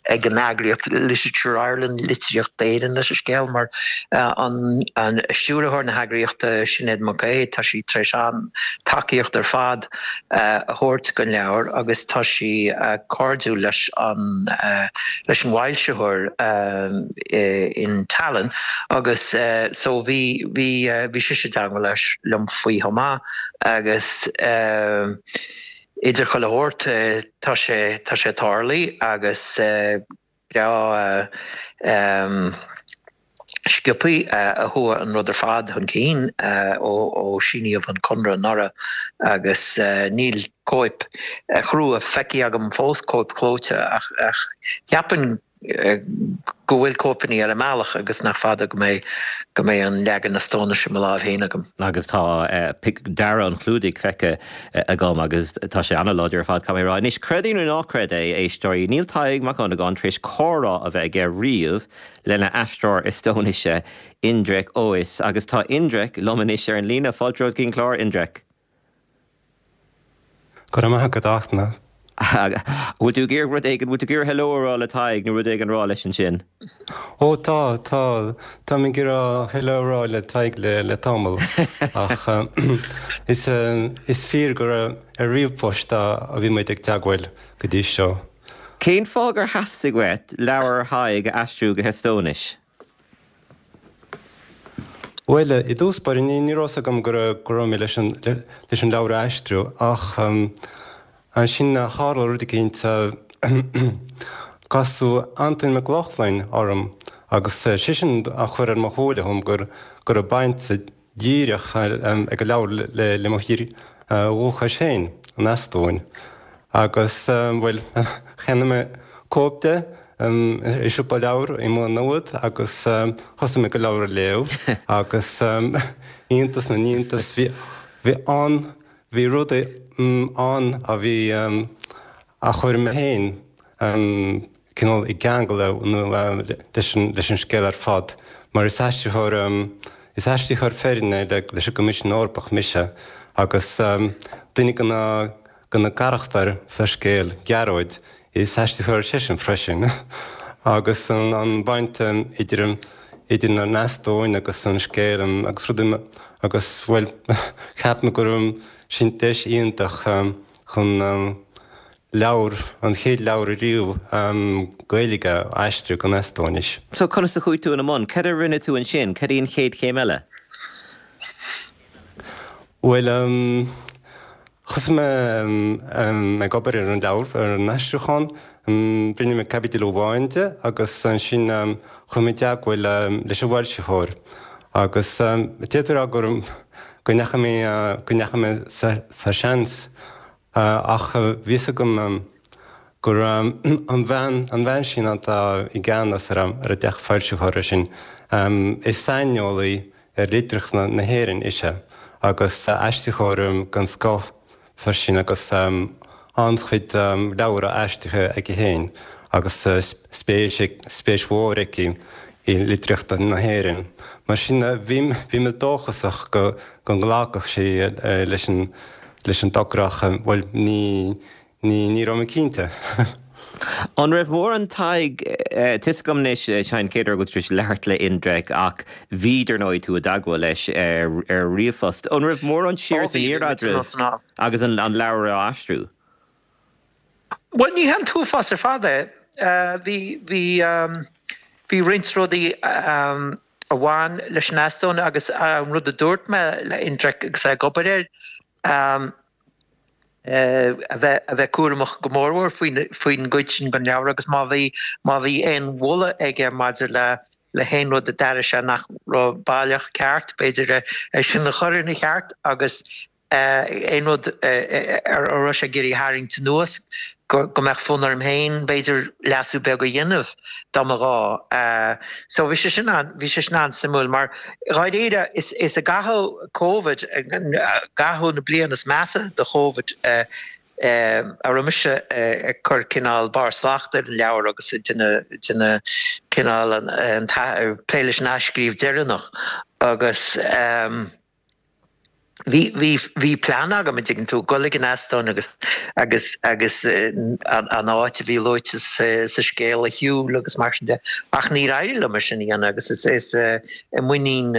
Speaker 5: ag an eagraíocht Literature Ireland, Litríocht Éireann, leis an scéal mar an an stiúrthóir na heagraíochta, Sinéad Mac Aodha, tá sí tar éis an-tacaíocht ar fad a thabhairt don leabhar agus tá sí cairdiúil leis an leis an bhfoilsitheoir in Tallinn agus so bhí bhí bhí sise i dteangmháil leis liom faoi chomh maith agus idir chuile shórt, tá sé, tá sé tarlaithe agus breá sciobthaí a chuaigh an rud ar fad chun cinn ó síníodh an conradh anuraidh agus níl cóip chrua feicthe agam fós, cóip chlóite, ach cheapfainn go bhfuil cóipeanna ar an mbealach agus nach fada go mbeidh go mbeidh an leagan Eastóinise i mo láimh féin agam.
Speaker 1: Agus tá dearadh an chlúdaigh feicthe agam agus tá sé an-láidir ar fad, caithfidh mé a rá. Anois, creid é nó ná creid é, a éisteoirí, níl Tadhg Mac Dhonnagáin tar éis comhrá a bheith aige riamh lena aistritheoir Eastóinise, Indrek Ois, agus tá Indrek liom anois ar an líne. Fáilte romhat go dtí an clár, Indrek.
Speaker 6: Go raibh maith agat, a Fhachtna.
Speaker 1: Bhfuil tú ag iarraidh rud éigin, bhfuil tú ag iarraidh hello a rá le Tadhg nó rud éigin a rá leis ansin?
Speaker 6: Ó tá, tá, táim ag iarraidh hello a rá le Tadhg le, le tamall. Ach is, is fíor gur ar ríomhphost a bhí muid ag teagmháil go dtí seo.
Speaker 1: Cén fáth gur theastaigh uait leabhar Thaidhg a aistriú go hEastóinis?
Speaker 6: Bhuel, i dtús báire, ní raibh fhios agam go raibh mé leis an leabhar a aistriú ach ansin tharla rud eicínt, casadh Antain Mac Lochlainn orm agus seisean a chuir ar mo shúile dhom go raibh baint dhíreach ag an leabhar le mo thír dhúchais féin, an Eastóin. Agus, bhuel, cheannaigh mé cóip de i siopa leabhar i Maigh Nuad agus thosaigh mé ag an leabhar a léamh agus iontas na n-iontas, bhí, bhí an, bhí rudaí ann a bhí, a chuir mé féin cineál i gceangal leis an scéal ar fad, mar is aistritheoir, is aistritheoir foirne leis an gCoimisiún Eorpach mise, agus duine de na, de na carachtair sa scéal, Gearóid, is aistritheoir seisean freisin, agus an bhaint idir, idir an Eastóin agus an scéal agus rudaí agus, bhuel, cheap mé go raibh sin deis iontach. chun leabhar, an chéad leabhar ariamh Gaeilge a aistriú go Eastóinis.
Speaker 1: So conas a chuaigh tú ina mbun? Cad a rinne tú ansin? Cad í an chéad chéim eile?
Speaker 6: Bhuel, thosaigh mé ag obair ar an leabhar, ar an aistriúchán. Rinne mé caibidil amháin de agus ansin chuaigh mé i dteagmháil leis an bhfoilsitheoir. Agus d'fhéadfaí a rá go go ndeachaigh mé, go ndeachaigh mé sa seans ach bhí fhios agam go raibh an bhean, an bhean sin atá i gceannas ar an dteach foilsitheora sin, is saineolaí ar litríocht na hÉireann ise agus aistritheoir den scoth freisin agus an-chuid leabhar aistrithe aici féin agus spéis, spéis mhór aici i litríocht na hÉireann. Mar sin bhí, bhí mé dóchasach go, go nglacfadh sí leis an, leis an dtogra ach, bhuel, ní, Ní, ní raibh mé cinnte.
Speaker 1: An raibh mórán Tadhg, tá fhios agam anois, Seán cén uair go bhfuil tú tar éis labhairt le Indrek ach bhí, dar ndóigh, tú i dteagmháil leis ar ríomhphost. An raibh mórán siar is aniar eadraibh agus an leabhar á aistriú?
Speaker 5: Bhuel, ní hé an t-uafás ar fad é. Bhí, bhí, bhí roinnt rudaí a bhain leis an Eastóin agus an rud a dúirt mé le Indrek agus é ag obair air, a bheith a bheith cúramach go mórmhór faoin faoin gcuid sin den leabhar agus má bhí má bhí aon mholadh aige maidir le le haon rud a d'airigh sé nach raibh baileach ceart, b'fhéidir é sin a chur ina cheart agus aon rud a raibh sé ag iarraidh a tharraingt anuas go go mbeadh fonn orm féin b'fhéidir leasú beag a dhéanamh dá mba ghá. So bhí sé sin an, bhí sé sin an-suimiúil mar dháiríre is is i gcaitheamh Covid, i gcaitheamh na bliana is measa de Chovid a raibh mise ag cur cineál barr slachta ar an leabhar agus ag déanamh déanamh cineál an an plé leis an athscríobh deireanach agus. Bhí, bhí, bhí plean agam, an dtuigeann tú, dul ag an Eastóin agus, agus, agus an, an áit a bhí luaite sa, sa scéal a shiúl agus mar sin de, ach níor éirigh liom é sin a dhéanamh agus is, is i muinín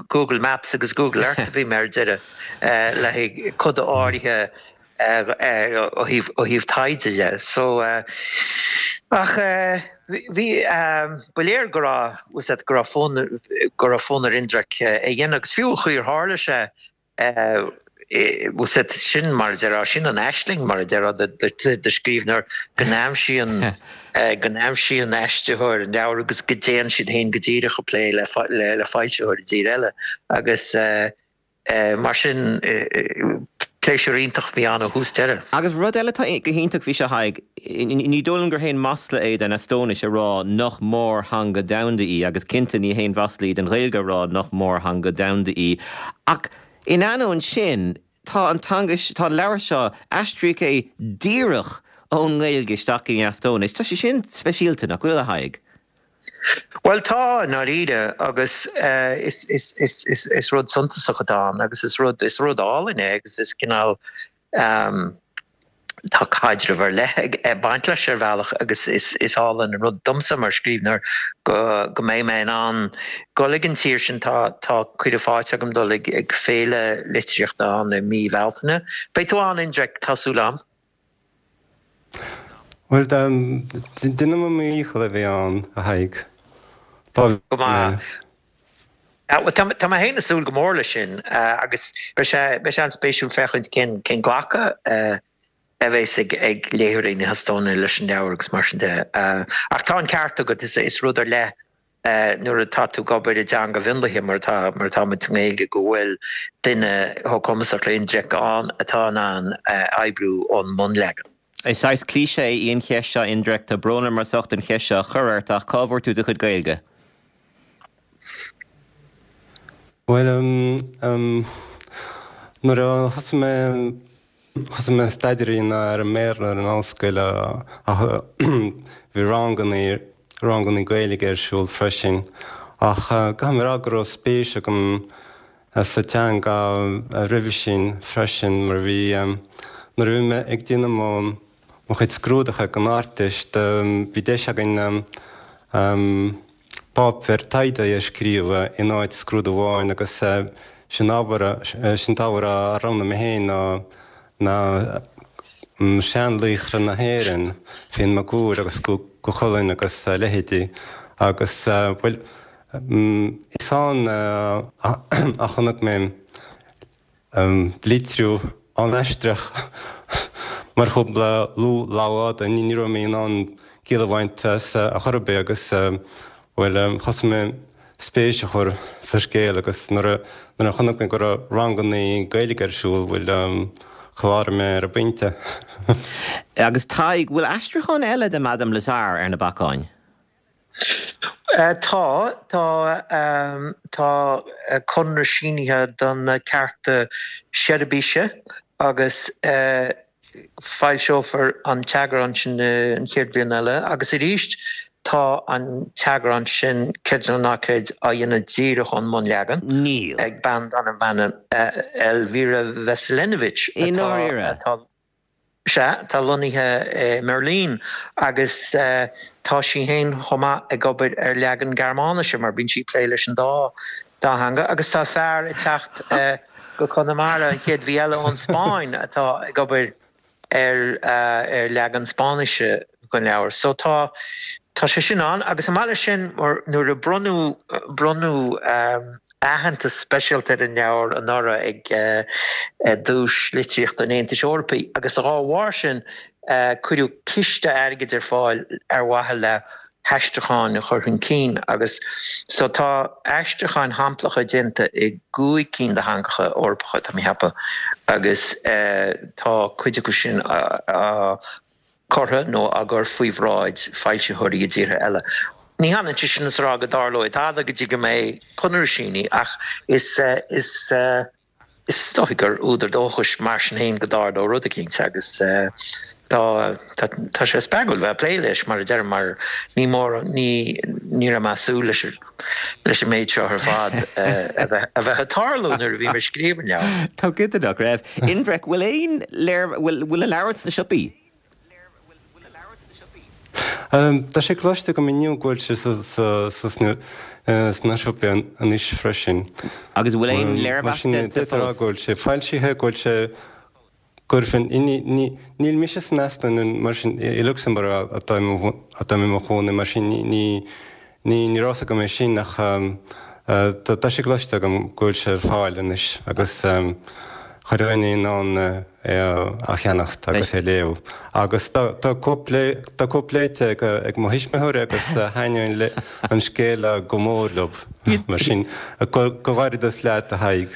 Speaker 5: Google Maps agus Google Earth a bhí mé ar deireadh le haghaidh coda áirithe ó thaobh taighde de. So, ach bhí, ba léir go raibh, bhfuil a fhios agat, go raibh fonn, go raibh fonn ar Indrek é a dhéanamh agus fiú an chaoi ar tharla sé, bhfuil a fhios agat, sin mar a déarfá, sin an aisling mar a déarfá do scríbhneoir go n-aimsíonn, go n-aimsíonn aistritheoir an leabhar agus go dtéann siad féin go díreach ag plé le foilsitheoir i dtír eile agus. Mar sin, pléisiúr iontach a bhí ann ó thús deireadh.
Speaker 1: Agus rud eile atá go hiontach faoi seo, Tadhg, ní dóigh liom gur haon masla é don Eastóinis a rá nach mórtheanga domhanda í, agus cinnte ní haon mhasla í don Ghaeilge a rá nach mórtheanga domhanda í, ach in ainneoin sin, tá an teanga, tá an leabhar seo, aistríodh é díreach ón nGaeilge isteach in Eastóinis. Tá sé sin speisialta, nach bhfuil, a Thaidhg?
Speaker 5: Bhuel tá, i ndáiríre, agus is rud suntasach atá ann agus is rud, is rud álainn é agus is cineál, tá caidreamh ar leith ag baint leis ar bhealach agus is álainn an rud domsa mar scríbhneoir go go mbeidh mé in ann dul ag an tír sin, tá tá cuireadh faighte agam dul ag ag féile litríochta ann i mí Bhealtaine. Beidh tú ann, Indrek, tá súil agam.
Speaker 6: Bhuel, déanfaidh mé mo dhícheall a bheith ann, a Thaidhg.
Speaker 5: Go maith. Bhuel, tá mé féin ag súil go mór leis sin agus beidh sé beidh sé an-spéisiúil féachaint cén cén glacadh a bheas ag ag léitheoirí na hEastóine leis an leabhar agus mar sin de. Ach tá an ceart agat, is is rud ar leith nuair atá tú ag obair i dteanga mhionlaithe mar atá mar atá muid sa nGaeilge go bhfuil duine chomh cumasach le Indrek ann atá in ann oibriú ón mbunleagan.
Speaker 1: Is saghas cliché í an cheist seo, Indrek, tá brón orm as ucht an cheist seo a chur ort ach cá bhfuair tú do chuid Gaeilge?
Speaker 6: Bhuel, nuair a thosaigh mé, thosaigh mé staidéar a dhéanamh ar an mBéarla ar an ollscoil ach bhí ranganna, ranganna Gaeilge ar siúl freisin. Ach caithfidh mé a rá go raibh spéis agam sa teanga roimhe sin freisin mar bhí, nuair a bhí mé ag déanamh mo, mo chuid scrúduithe don Ardteist, bhí deis againn páipéar taighde a scríobh in áit scrúdú amháin agus sin ábhar, sin t-ábhar a roghnaigh mé féin ná ná seanlaochra na hÉireann, Fionn Mac Cumhaill agus Cú Chulainn agus a leithéidí agus bhuel is ann a chonaic mé litriú an-aisteach, mar shampla Lugh Lamhfhada, ní raibh mé in ann ciall a bhaint as ar chor ar bith agus, bhuel, thosaigh mé spéis a chur sa scéal agus nuair a chonaic mé go raibh ranganna Gaeilge ar siúl, bhuel, chláraigh mé ar an bpointe.
Speaker 1: Agus Tadhg, bhfuil aistriúchán eile de Madame Lazare ar na bacáin?
Speaker 5: Tá, tá, tá conradh sínithe do na cearta Seirbise agus foilseofar an t-eagrán sin an chéad bhliain eile agus arís tá an t-eagrán sin, creid é nó ná creid, á dhéanamh díreach ón mbunleagan
Speaker 1: Níl.
Speaker 5: ag bean darb ainm Elvira Veselinovic
Speaker 1: I atá, ndáiríre?
Speaker 5: atá. Sea, tá lonnaithe i mBeirlín agus tá sí féin chomh maith ag obair ar leagan Gearmáinise mar bíonn sí ag plé leis an dá theanga agus tá fear ag teacht go Conamara an chéad mhí eile ón Spáinn atá ag obair ar leagan Spáinnise den leabhar. So tá tá sé sin ann agus chomh maith leis sin nuair a bronnadh bronnadh aitheantas speisialta ar an leabhar anuraidh ag Duais Litríochta an Aontais Eorpaigh agus dá bharr sin cuireadh ciste airgid ar fáil ar mhaithe le haistriúcháin a chur chun cinn agus so tá aistriúcháin shamplacha déanta i gcúig cinn de theangacha Eorpacha, tá mé a cheapadh, agus tá cuid acu sin á curtha nó á gcur faoi bhráid foilsitheoirí i dtíortha eile. Ní hionann sé sin is a rá go dtarlóidh tada go dtí go mbeidh conradh sínithe ach is is is dóigh gur údar dóchais mar sin féin go dtarlóidh rud eicínt agus tá tá tá sé spreagúil bheith ag plé leis mar a deirim mar ní mór ní ní raibh mé ag súil leis leis an méid seo ar fad a bheith a bheith ag tarlú nuair a bhí mé ag scríobh an leabhair.
Speaker 1: Tá go nach raibh. Indrek, bhfuil aon léir, bhfuil, bhfuil an leabhar sna siopaí?
Speaker 6: Tá sé cloiste agam inniu go bhfuil sé sa, sa, sna, sna siopaí anois freisin.
Speaker 1: Agus bhfuil aon léirmheas
Speaker 6: déanta fós? Mar sin, go bhfuil sé foilsithe, go bhfuil sé Cuirfinn, níl mise san Eastóin mar sin, i Lucsamburg atáim i mo chónaí mar sin ní ní raibh fhios agam é sin ach tá sé cloiste agam go bhfuil sé ar fáil anois agus chuile dhuine in ann é a cheannacht agus é a léamh. Agus tá cóip tá cóip léite ag mo thuismitheoirí agus thaitnigh an scéal go mór leo mar sin comhghairdeas leat a Thaidhg.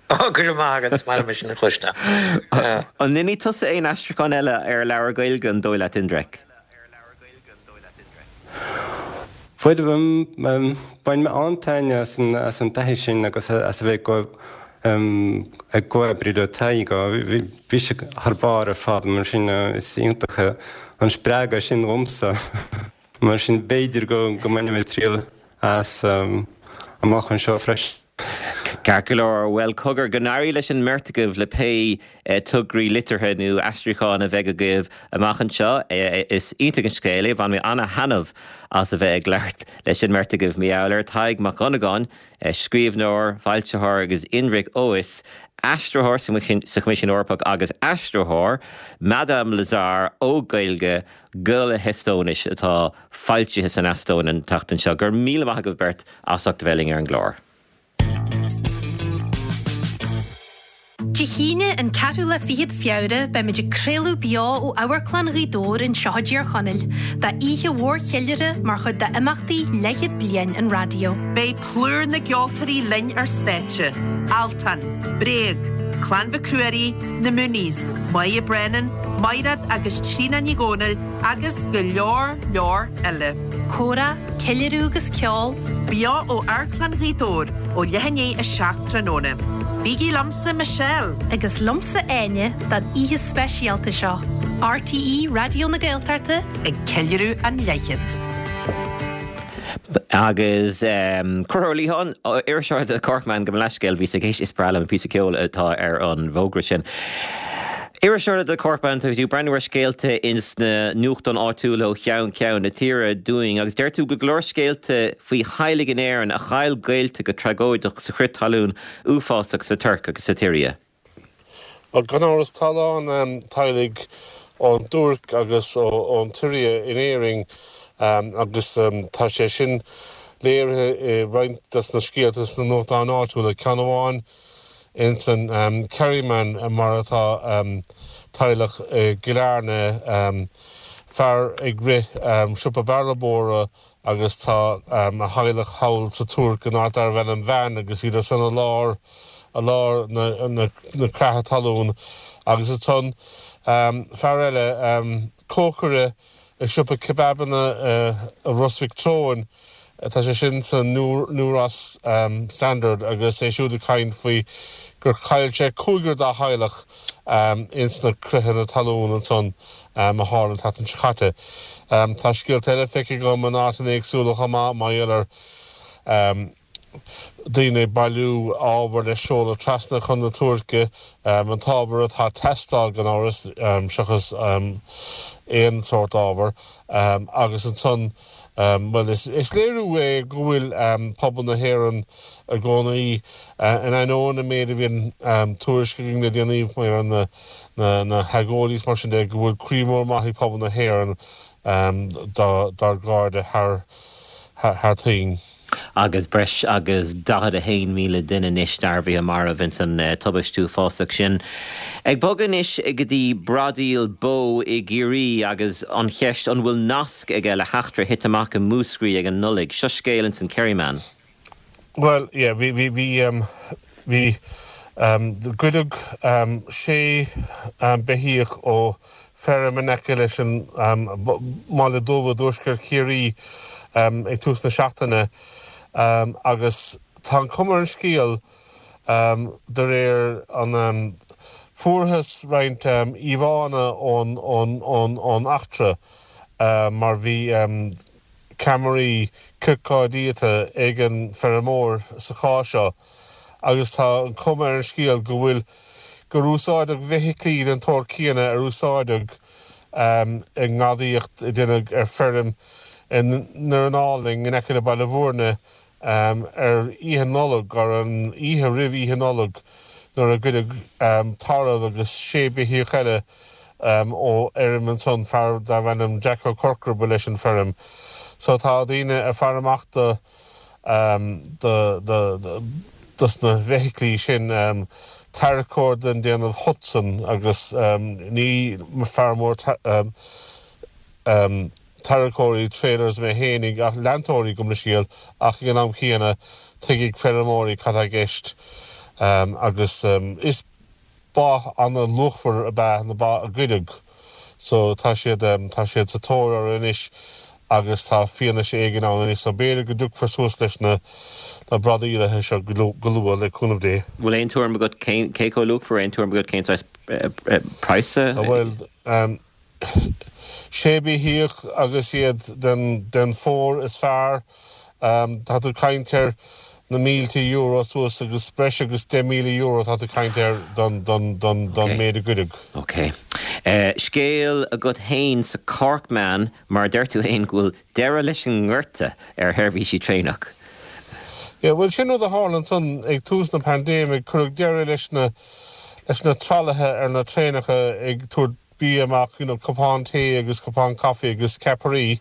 Speaker 5: Ó, go raibh maith agat, is maith liom é sin a chloisteáil.
Speaker 1: An ndéanfaidh tusa aon aistriúchán eile ar leabhar Gaeilge, an dóigh leat, Indrek?
Speaker 6: Bhuel, bhain mé an-taitneamh as an as an taithí sin agus as a bheith ag comhoibriú le Tadhg. Bhí sé thar barr ar fad, mar sin is iontach an spreagadh sin dhomsa. Mar sin b'fhéidir go go mbainfidh mé triail as amach anseo freisin.
Speaker 1: Ceart go leor, bhuel cogar, go n-éirí leis an mbeirt agaibh le pé tograí liteartha nó aistriúcháin a bheidh agaibh amach anseo. Is iontach an scéal é, bhain mé ana-thaitneamh as a bheith ag labhairt leis an mbeirt agaibh mar gheall air. Tadhg Mac Dhonnagáin, scríbhneoir, foilsitheoir agus Indrek Ois, aistritheoir sa Choimisiún Eorpach agus aistritheoir, Madame Lazare ó Ghaeilge go le hEastóinis atá foilsithe san Eastóin an tseachtain seo. Go raibh míle maith agaibh beirt as ucht a bheith linn ar an gclár.
Speaker 7: Dé hAoine, an ceathrú lá fichead Feabhra, beimid ag craoladh beo ó Amharclann Ghaoth Dobhair anseo i dTír Chonaill, d'oíche mhór cheiliúrtha mar chuid d'imeachtaí Leathchéad Bliain an Raidió.
Speaker 8: Beidh plúr na gceoltóirí linn ar stáitse, Altan, Bréag, Clann Mhic Ruairí, Na Mooneys, Moya Brennan, Maighread agus Tríona Ní Dhomhnaill agus go leor leor eile.
Speaker 7: Comhrá, ceiliúradh agus ceol.
Speaker 8: Beo ó Amharclann Ghaoth Dobhair ó leath i ndiaidh 7 tráthnóna. Bígí liomsa Michelle.
Speaker 7: Agus liomsa Áine don oíche speisialta seo. RTÉ Raidió na Gaeltachta.
Speaker 8: Ag ceiliúradh an leathchéad.
Speaker 1: Agus Conchúr Ó Liatháin, iriseoir The Corkman, gabh mo leithscéal, bhíos ag éisteacht, is breá liom an píosa ceoil atá ar an bhfógra sin. Iriseoir The Corkman, tá tú ag breathnú ar scéalta ins na nuachtáin áitiúla ó cheann ceann na tíre dúinn agus deir tú go go leor scéalta faoi theaghlaigh in Éirinn a chaill gaolta go tragóideach sa chrith talún uafásach sa Tuirc agus sa tSiria.
Speaker 9: Bhuel, gan amhras, tá a lán teaghlaigh ón dTuairc agus ón tSiria in Éirinn agus tá sé sin léirithe i roinnt des na scéalta sna nuachtáin áitiúla. Ceann amháin ins an Kerryman mar atá teaghlach i gCill Airne, fear ag rith siopa bearbóra agus tá a theaghlach thall sa Tuairc in áit darbh ainm Van agus bhíodar san i lár i lár na na creatha talún agus ansan fear eile cócaire i siopa kebabanna i Ros Mhic Treoin tá sé sin sa New Ross Standard agus é siúd ag caint faoi gur chaill sé cúigear dá theaghlach ins na critheanna talún ansan a tharla an tseachtain seo caite. Tá scéalta eile feicthe agam in áiteanna éagsúla chomh maith mar gheall ar daoine ag bailiú ábhair le seoladh trasna chun na Tuirce, an t-ábhar atá ag teastáil gan amhras, seachas aon sórt ábhair, agus ansan Bhuel, is léiriú é go bhfuil pobal na hÉireann i gcónaí, in ainneoin an méid a bhíonn tuairisc againn le déanaí mar na hagóidí is mar sin de, go bhfuil croí mór maith ag pobal na hÉireann dár gcairde thar toinn.
Speaker 1: Agus breis agus 41,000 duine anois dearbhaithe marbh ins an tubaist uafásach sin. Ag bogadh anois go dtí bradaíl bó i gCiarraí agus an cheist an bhfuil nasc aige le heachtra a thit amach i Múscraí ag an Nollaig. Seo scéal ins an Kerryman.
Speaker 9: Bhuel, yeah, bhí, bhí, bhí, bhí, goideadh sé beithíoch ó feirm in aice leis an mBaile Dubh i dtuaisceart Chiarraí ag tús na seachtaine agus tá an chuma ar an scéal de réir an fuarthas roinnt íomhánna ón eachtra mar bhí ceamaraí ciorcáidiata ag an bhfeirmeoir sa chás seo agus tá an chuma ar an scéal go bhfuil gur úsáideadh feithiclí den tsórt céanna ar úsáideadh i ngadaíocht a deineadh ar feirm i nDoireann Álainn in aice le Baile Bhúirne ar Oíche Nollag, ar an oíche roimh Oíche Nollag, nuair a goideadh tarbh agus sé beithíoch eile ó fheirm ansan, fear darbh ainm Jack Ó Corcora ba leis an feirm. So tá daoine ag faire amach do, do, do, dos na feithiclí sin, tarracóir den déanamh Hudson agus ní fear mór tarracóirí, trailers mé fhéinig ach leantóirí gabh mo leithscéal ach ag an am chéanna tuigfidh feirmeoirí cad tá i gceist agus is ba ana-luachmhar ab ea na ba a goideadh so tá siad tá siad sa tóir orthu anois agus tá fianaise éigin ann anois so b'fhéidir go dtiocfar suas leis na na bradaíolaithe seo go luath le cúnamh Dé.
Speaker 1: Bhfuil aon tuairim agat cén cé chomh luachmhar aon tuairim agat cén saghas praghas?
Speaker 9: Bhuel Sé beithíoch agus iad den phór is fearr. Tá tú ag caint ar. na mílte euro suas agus breis agus €10,000 atá tú ag caint air don don méid a goideadh.
Speaker 1: Ok. Scéal agat fhéin sa Corkman mar deir tú fhéin go bhfuil deireadh leis an ngorta ar sheirbhísí traenach.
Speaker 9: Yeah, bhuel sin rud a tharla ansan ag tús na paindéime, cuireadh deireadh leis na leis na tralaithe ar na traenacha ag tabhairt bia amach, you know, cupán tae agus cupán caife agus ceapairí.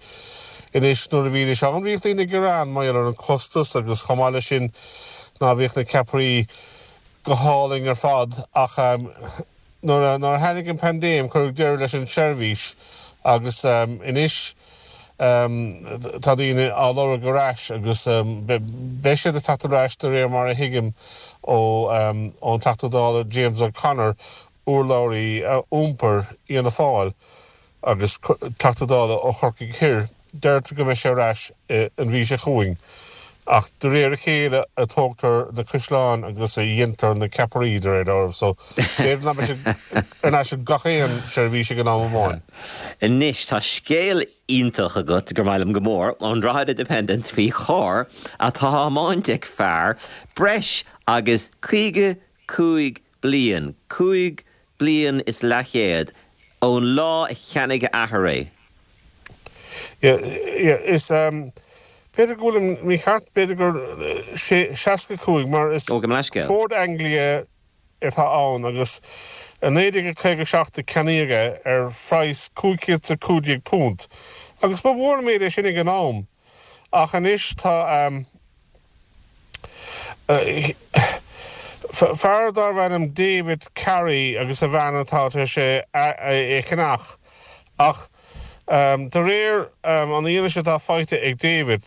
Speaker 9: Anois nuair a bhídís ann bhíodh daoine ag gearán mar gheall ar an costas agus chomh maith leis sin ná bíodh na ceapairí go hálainn ar fad ach nuair a nuair a tháinig an paindéim cuireadh deireadh leis an seirbhís agus anois tá daoine á lorg ar ais agus beidh siad ag teacht ar ais de réir mar a thuigim ó ón Teachta Dála James O'Connor urlabhraí iompair Fhianna Fáil agus Teachta Dála ó Chorcaigh Thoir, deirtear go mbeidh sé ar ais an mhí seo chugainn. Ach de réir a chéile a tógtar na caisleáin agus a dhéantar na ceapairí, de réir dealraimh, so b'fhéidir nach mbeidh sé ar ais ag gach aon seirbhís ag an am amháin.
Speaker 1: Anois, tá scéal iontach agat, gur maith liom go mór, ón Drogheda Independent faoi charr atá á thiomáint ag fear breis agus 55 bliain, 5 bliain is leathchéad, ón lá a cheannaigh a athair
Speaker 9: é. Yeah, yeah, is, b'fhéidir go bhfuilim mícheart, b'fhéidir gur 65, mar is
Speaker 1: Ó, gabh mo leithscéal.
Speaker 9: Ford Anglia atá ann agus i 1957 a ceannaíodh é ar phraghas £515 agus ba mhór an méid é sin ag an am ach anois tá, Fear darbh ainm David Carey agus a bhean atá tar éis é a cheannach ach de réir an fhianaise atá faighte ag David,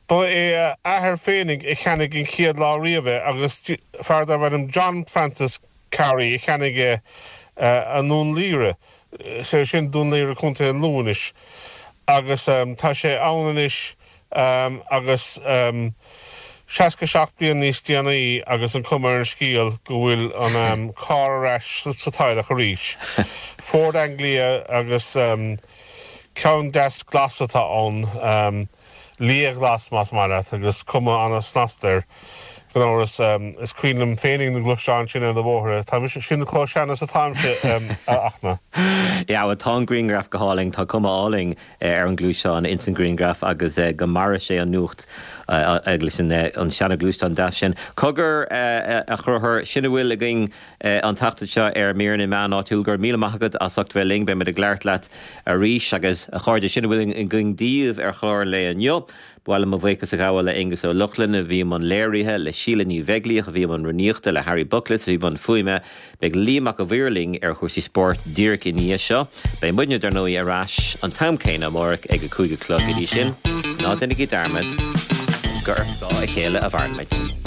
Speaker 9: ba é a athair féinig a cheannaigh an chéad lá riamh é agus fear darbh ainm John Francis Carey a cheannaigh é i nDún Laoghaire, is é sin Dún Laoghaire, Contae an Lú anois, agus tá sé ann anois agus 67 bliain níos déanaí agus an cuma ar an scéal go bhfuil an carr ar ais sa teaghlach arís. Ford Anglia agus ceann deas glas atá ann, liathghlas más maith leat, agus cuma an-snasta air. Gan amhras, is cuimhin liom féinig na gluaisteáin sin ar na bóithre. Tá mise, sin chomh sean is atáimse, a Fhachtna.
Speaker 1: Yeah, bhuel tá an grianghraf go hálainn, tá cuma álainn ar an gluaisteán ins an ghrianghraf agus go maire sé an nuacht leis an seana-ghluaisteán deas sin. Cogar, a Chonchúir, sin a bhfuil againn an tseachtain seo ar Mír na Meán Áitiúil. Go raibh míle maith agat as ucht bheith linn. Beidh muid ag labhairt leat arís agus, a chairde, sin a bhfuil againn daoibh ar chlár an lae inniu. Ba mhaith liom mo bhuíochas a ghabháil le Aengus Ó Lochlainn a bhí i mbun léirithe, le Síle Ní Bheaglaoich a bhí i mbun rúnaíochta, le Harry Bookless a bhí i mbun fuaime. Beidh Liam Mac a' Mhaoir linn ar chúrsaí spóirt díreach i ndiaidh seo. Beidh muidne, dar ndóigh, ar ais an t-am céanna amárach ag a 5 a chlog. Go dtí sin, ná déanaigí dearmad gur ar scáth a chéile a mhaireann muid.